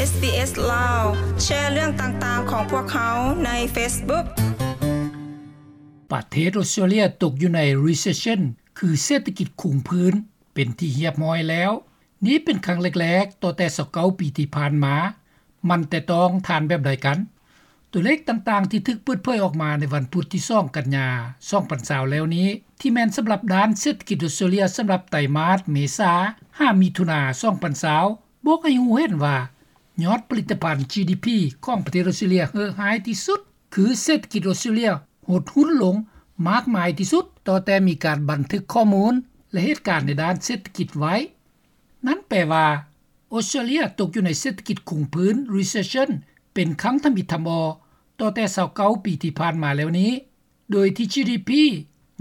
SBS ລາວ ແຊເລື່ອງຕ່າງໆຂອງພວກເຮົາໃນ Facebook. ປະເທດອອສເຕຣເລຍຕົກຢູ່ໃນ Recession ຄືເສດຖະກິດຄຸງພື້ນ ເປັນທີ່ຮຽບຮ້ອຍແລ້ວ. ນີ້ເປັນຄັ້ງແລກໆ ຕໍ່ແຕ່ຊາວເກົ້າປີທີ່ຜ່ານມາ. ມັນແຕະຕ້ອງທ່ານແບບໃດກັນ? ຕົວເລກຕ່າງໆທີ່ຖືກເປີດເຜີຍອອກມາໃນວັນພຸດທີສອງກັນຍາ ສອງພັນຊາວແລ້ວນີ້ ທີ່ແມ່ນສຳລັບດ້ານເສດຖະກິດອອສເຕຣເລຍ ສຳລັບໄຕມາດເມສາຫາມິຖຸນາ ສອງພັນຊາວ ບອກໃຫ້ຮູ້ເຫັນວ່າ ຍອດຜະລິດຕະພັນ GDP ຂອງປະເທດອອສເຕຣເລຍເຫີະຮ້າຍທີ່ສຸດ ຄືເສດຖະກິດອອສເຕຣເລຍຫົດຮຸ້ນລົງມາກມາຍທີ່ສຸດ ຕໍ່ແຕ່ມີການບັນທຶກຂໍ້ມູນ ແລະ ເຫດການໃນດ້ານເສດຖະກິດໄວ້. ນັ້ນແປວ່າ ອອສເຕຣເລຍຕົກຢູ່ໃນເສດຖະກິດຄຸງພື້ນ Recession ເປັນຄັ້ງທຳອິດທຳອໍ ຕໍ່ແຕ່ຊາວເກົ້າປີທີ່ຜ່ານມາແລ້ວນີ້ ໂດຍທີ່ GDP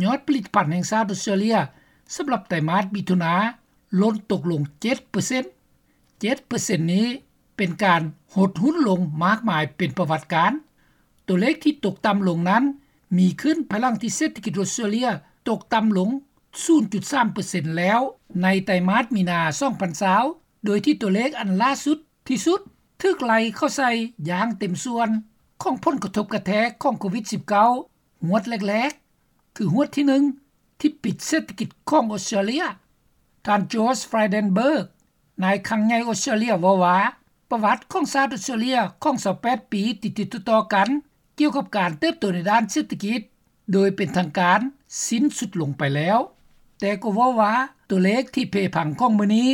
ຍອດຜະລິດຕະພັນແຫ່ງຊາດອອສເຕຣເລຍ ສຳລັບໄຕມາດມິຖຸນາ ຫຼົ່ນຕົກລົງເຈັດເປີເຊັນ. ເຈັດເປີເຊັນນີ້ເປັນການຫົດຮຸ້ນລົງມາກມາຍເປັນປະຫວັດການ. ຕົວເລກທີ່ຕົກຕ່ຳລົງນັ້ນ ມີຂຶ້ນພາຍຫຼັງທີ່ເສດຖະກິດອອສເຕຣເລຍຕົກຕ່ຳລົງສູນຈຸດສາມເປີເຊັນແລ້ວ ໃນໄຕມາດມີນາ ສອງພັນຊາວ ໂດຍທີ່ຕົວເລກອັນຫຼ້າສຸດທີ່ສຸດ ຖືກໄລ່ເຂົ້າໃສ່ຢ່າງເຕັມສ່ວນ ຂອງຜົນກະທົບກະແທກຂອງໂຄວິດສິບເກົ້າ ຮວດແລກໆ ຄືຮວດທີໜຶ່ງ ທີ່ປິດເສດຖະກິດຂອງອອສເຕຣເລຍ. ທ່ານ George Frydenberg ນາຍຄັງໃຫຍ່ອອສເຕຣເລຍ ເວົ້າວ່າ ປະຫວັດຂອງຊາດອອສເຕຣເລຍຂອງຊາວແປດປີຕິດໆຕໍ່ໆກັນ ກ່ຽວກັບການເຕີບໂຕໃນດ້ານເສດຖະກິດ ໂດຍເປັນທາງການສິ້ນສຸດລົງໄປແລ້ວ, ແຕ່ກໍເວົ້າວ່າ ຕົວເລກທີ່ເພພັງຂອງມື້ນີ້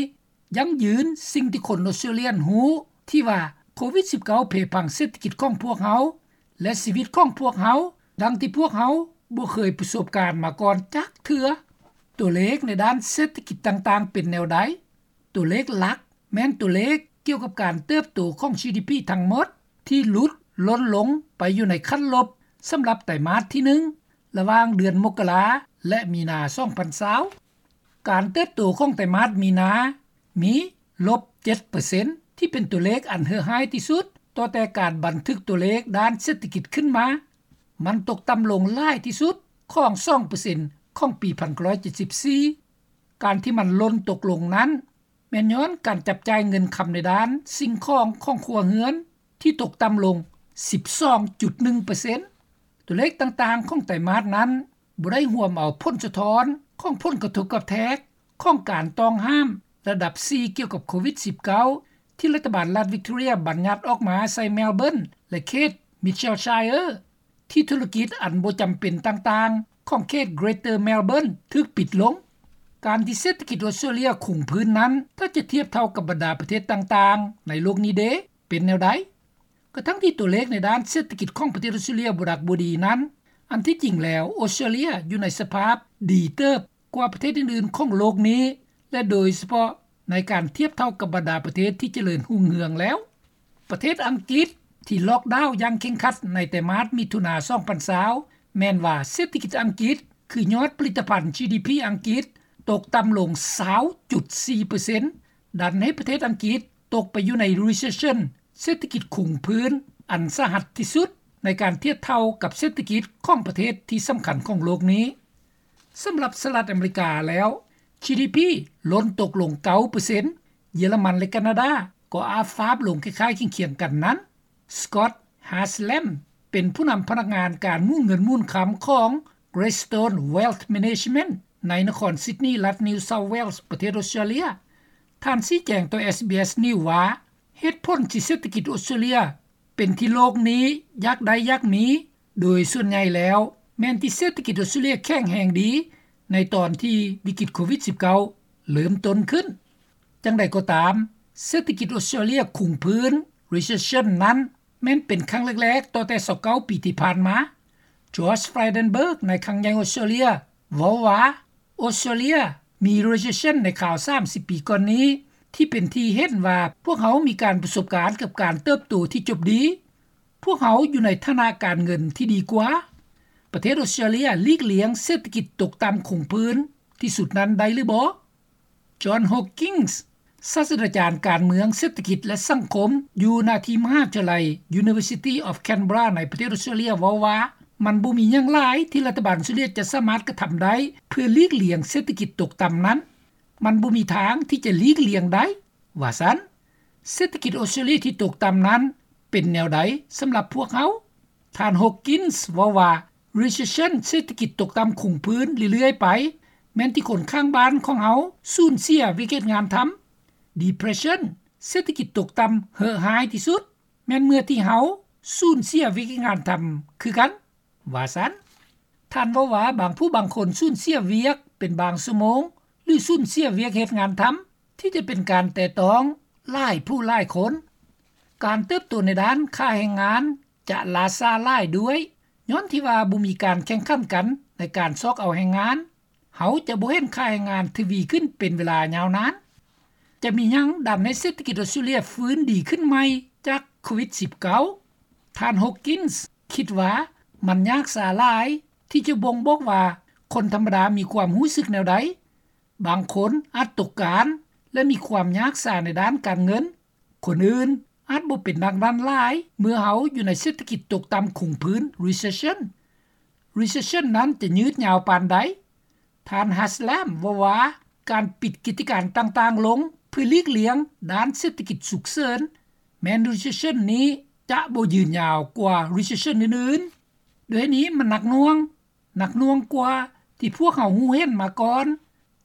ຢັ້ງຢືນສິ່ງທີ່ຄົນອອສເຕຣເລຍຮູ້ ທີ່ວ່າໂຄວິດສິບເກົ້າເພພັງເສດຖະກິດຂອງພວກເຮົາ ແລະ ຊີວິດຂອງພວກເຮົາ ດັ່ງທີ່ພວກເຮົາບໍ່ເຄີຍປະສົບການມາກ່ອນຈັກເທື່ອ. ຕົວເລກໃນດ້ານເສດຖະກິດຕ່າງໆເປັນແນວໃດ? ຕົວເລກຫຼັກແມ່ນຕົວເລກກ່ຽວກັບການເຕີບໂຕຂອງ GDP ທັງໝົດ ທີ່ຫຼຸດຫຼົ່ນລົງໄປຢູ່ໃນຂັ້ນລົບ ສຳລັບໄຕມາດທີໜຶ່ງ ລະຫວ່າງເດືອນມົກກະລາ ແລະ ມີນາ ສອງພັນຊາວ. ການເຕີບໂຕຂອງໄຕມາດມີນາມີລົບເຈັດເປີເຊັນ ທີ່ເປັນຕົວເລກອັນເຫືອຮ້າຍທີ່ສຸດ ຕໍ່ແຕ່ການບັນທຶກຕົວເລກດ້ານເສດຖະກິດຂຶ້ນມາ. ມັນຕົກຕ່ຳລົງຫຼາຍທີ່ສຸດຂອງສອງເປີເຊັນຂອງປີພັນເກົ້າຮ້ອຍເຈັດສິບສີ່. ການທີ່ມັນຫຼົ່ນຕົກລົງນັ້ນ ແມ່ນຍ້ອນການຈັບຈ່າຍເງິນຄຳໃນດ້ານສິ່ງຂອງຂອງຄົວເຮືອນ ທີ່ຕົກຕ່ຳລົງສິບສອງຈຸດໜຶ່ງເປີເຊັນ. ຕົວເລກຕ່າງໆຂອງໄຕມາດນັ້ນ ບໍ່ໄດ້ຮວມເອົາຜົນສະທ້ອນຂອງຜົນກະທົບກະແທກຂອງການຕ້ອງຫ້າມລະດັບສີ່ ກ່ຽວກັບໂຄວິດສິບເກົ້າ ທີ່ລັດຖະບານລັດ Victoria ບັນຍັດອອກມາໃສ່ Melbourne ແລະ ເຂດ Mitchellshire ທີ່ທຸລະກິດອັນບໍ່ຈຳເປັນຕ່າງໆຂອງເຂດ Greater Melbourne ຖືກປິດລົງ. ການທີ່ເສດຖະກິດອອສເຕຣເລຍຄົງພື້ນນັ້ນ ຖ້າຈະທຽບເທົ່າກັບບັນດາປະເທດຕ່າງໆໃນໂລກນີ້ເດ ເປັນແນວໃດ? ກະທັງທີ່ຕົວເລກໃນດ້ານເສດຖະກິດຂອງປະເທດອອສເຕຣເລຍບໍ່ດັກບໍ່ດີນັ້ນ, ອັນທີ່ຈິງແລ້ວ ອອສເຕຣເລຍຢູ່ໃນສະພາບດີເຕີບກວ່າປະເທດອື່ນໆຂອງໂລກນີ້ ແລະ ໂດຍສະເພາະໃນການທຽບເທົ່າກັບບັນດາປະເທດທີ່ຈະເລີນຮຸ່ງເຮືອງແລ້ວ. ປະເທດອັງກິດທີ່ລ໊ອກດາວຢ່າງເຄັ່ງຄັດໃນໄຕມາດມິຖຸນາ ສອງພັນຊາວ ແມ່ນວ່າເສດຖະກິດອັງກິດ ຄືຍອດຜະລິດຕະພັນ GDP ອັງກິດ ຕົກຕ່ຳລົງຊາວຈຸດສີ່ເປີເຊັນ ດັນໃຫ້ປະເທດອັງກິດຕົກໄປຢູ່ໃນ Recession ເສດຖະກິດຄຸງພື້ນອັນສາຫັດທີ່ສຸດ ໃນການທຽບເທົ່າກັບເສດຖະກິດຂອງປະເທດທີ່ສຳຄັນຂອງໂລກນີ້. ສຳລັບສະຫະລັດອາເມລິກາແລ້ວ GDP ຫຼົ່ນຕົກລົງເກົ້າເປີເຊັນ, ເຢຍລະມັນ ແລະ ການາດາກໍອາບຟາບລົງຄ້າຍໆຄຽງໆກັນນັ້ນ. Scott Haslam ເປັນຜູ້ນຳພະນັກງານການໝູນເງິນໝູນຄຳຂອງ Greystone Wealth Management ໃນນະຄອນ Sydney ລັດ New South Wales ປະເທດອອສເຕຣເລຍ. ທ່ານຊີ້ແຈງຕໍ່ SBS News ວ່າ ເຫດຜົນທີ່ເສດຖະກິດອອສເຕຣເລຍເປັນທີ່ໂລກນີ້ຢາກໄດ້ຢາກມີ ໂດຍສ່ວນໃຫຍ່ແລ້ວ ແມ່ນທີ່ເສດຖະກິດອອສເຕຣເລຍແຂງແຮງດີ ໃນຕອນທີ່ວິກິດໂຄວິດສິບເກົ້າເລີ່ມຕົ້ນຂຶ້ນ. ຈັ່ງໃດກໍຕາມ, ເສດຖະກິດອອສເຕຣເລຍຄຸງພື້ນ Recession ນັ້ນ ແມ່ນເປັນຄັ້ງແລກໆຕໍ່ແຕ່ຊາວເກົ້າປີທີ່ຜ່ານມາ. George Frydenberg ນາຍຄັງໃຫຍ່ອອສເຕຣເລຍ ເວົ້າວ່າ ອອສເຕຣເລຍມີ Recession ໃນຄາວສາມສິບປີກ່ອນນີ້ ທີ່ເປັນທີ່ເຫັນວ່າພວກເຮົາມີການປະສົບການກັບການເຕີບໂຕທີ່ຈົບດີ. ພວກເຮົາຢູ່ໃນຖານະການເງິນທີ່ດີກວ່າ. ປະເທດອອສເຕຣເລຍຫຼີກລ່ຽງເສດຖະກິດຕົກຕ່ຳຄົງພື້ນທີ່ສຸດນັ້ນໄດ້ຫຼືບໍ່? John Hawkins ສາດສະດາຈານການເມືອງ, ເສດຖະກິດ ແລະ ສັງຄົມ ຢູ່ນະທີ່ມະຫາວິທະຍາໄລ University of Canberra ໃນປະເທດອອສເຕຣເລຍ ເວົ້າວ່າ ມັນບໍ່ມີຫຍັງຫຼາຍທີ່ລັດຖະບານອອສເຕຣເລຍຈະສາມາດກະທຳໄດ້ ເພື່ອຫຼີກລ່ຽງເສດຖະກິດຕົກຕ່ຳນັ້ນ. ມັນບໍ່ມີທາງທີ່ຈະຫຼີກລ່ຽງໄດ້, ວ່າຊັ້ນ. ເສດຖະກິດອອສເຕຣເລັຽທີ່ຕົກຕໍ່ານັ້ນ ເປັນແນວໃດສຳລັບພວກເຮົາ? ທ່ານ Hawkins ເວົ້າວ່າ Recession ເສດຖະກິດຕົກຕໍ່າຄົງພື້ນເລື້ອຍໆໄປ ແມ່ນທີ່ຄົນຂ້າງບ້ານຂອງເຮົາສູນເສຍວຽກເຮັດງານທຳ. Depression ເສດຖະກິດຕົກຕໍ່າເຫາະຮ້າຍທີ່ສຸດ ແມ່ນເມື່ອທີ່ເຮົາສູນເສຍວຽກເຮັດງານທຳຄືກັນ ວ່າຊັ້ນ. ທ່ານເວົ້າວ່າ ບາງຜູ້ບາງຄົນສູນເສຍວຽກເປັນບາງຊົ່ວໂມງ ຫຼື ສູນເສຍວຽກເຮັດງານທຳ ທີ່ຈະເປັນການແຕະຕ້ອງຫຼາຍຜູ້ຫຼາຍຄົນ. ການເຕີບໂຕໃນດ້ານຄ່າແຮງງານຈະຫຼ້າຊ້າຫຼາຍດ້ວຍ ຍ້ອນທີ່ວ່າບໍ່ມີການແຂ່ງຂັນກັນໃນການຊອກເອົາແຮງງານ. ເຮົາຈະບໍ່ເຫັນຄ່າແຮງງານທະວີຂຶ້ນເປັນເວລາຍາວນານ. ຈະມີຫຍັງດັນໃຫ້ເສດຖະກິດອອສເຕຣເລັຽຟື້ນດີຂຶ້ນໃໝ່ຈາກໂຄວິດສິບເກົ້າ? ທ່ານ Hawkins ຄິດວ່າມັນຍາກຊ້າຫຼາຍທີ່ຈະບົ່ງບອກວ່າຄົນທຳມະດາມີຄວາມຮູ້ສຶກແນວໃດ. ບາງຄົນອາດຕົກງານ ແລະ ມີຄວາມຍາກຊ້າໃນດ້ານການເງິນ. ຄົນອື່ນອາດບໍ່ເປັນດັ່ງນັ້ນຫຼາຍ ເມື່ອເຮົາຢູ່ໃນເສດຖະກິດຕົກຕໍ່າຄົງພື້ນ Recession. Recession ນັ້ນຈະຍືດຍາວປານໃດ? ທ່ານ Haslam ເວົ້າວ່າ ການປິດກິດຈະການຕ່າງໆລົງເພື່ອຫຼີກລ່ຽງດ້ານເສດຖະກິດສຸກເສີນ ແມ່ນ Recession ນີ້ຈະບໍ່ຍືນຍາວກວ່າ Recession ອື່ນໆ. ດ້ວຍນີ້ມັນໜັກໜ່ວງ, ໜັກໜ່ວງກວ່າທີ່ພວກເຮົາຮູ້ເຫັນມາກ່ອນ,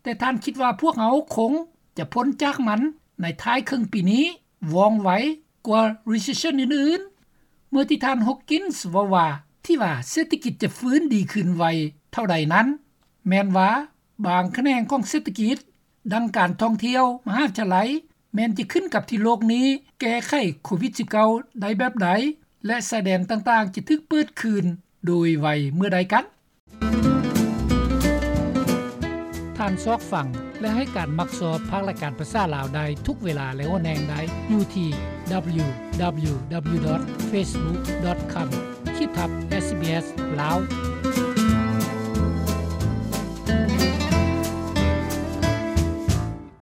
ແຕ່ທ່ານຄິດວ່າພວກເຮົາຄົງຈະພົ້ນຈາກມັນໃນທ້າຍເຄິ່ງປີນີ້ວ່ອງໄວກວ່າ Recession ອື່ນໆ. ເມື່ອທີ່ທ່ານ Hawkins ເວົ້າວ່າ ທີ່ວ່າເສດຖະກິດຈະຟື້ນດີຂຶ້ນໄວເທົ່າໃດນັ້ນ ແມ່ນວ່າບາງຂະແໜງຂອງເສດຖະກິດ ດັ່ງການທ່ອງທ່ຽວ, ມະຫາວິທະຍາໄລ ແມ່ນຈະຂຶ້ນກັບທີ່ໂລກນີ້ແກ້ໄຂໂຄວິດສິບເກົ້າໄດ້ແບບໃດ ແລະ ຊາຍແດນຕ່າງໆຈະຖືກເປີດຄືນໂດຍໄວເມື່ອໃດກັນ. ທ່ານຊອກຟັງ ແລະ ໃຫ້ການມັກຊອບພາກລາຍການພາສາລາວໄດ້ທຸກເວລາ ແລະ ຫົວແຫ່ງໄດ້ຢູ່ທີ່ www.facebook.com/sbs ລາວ.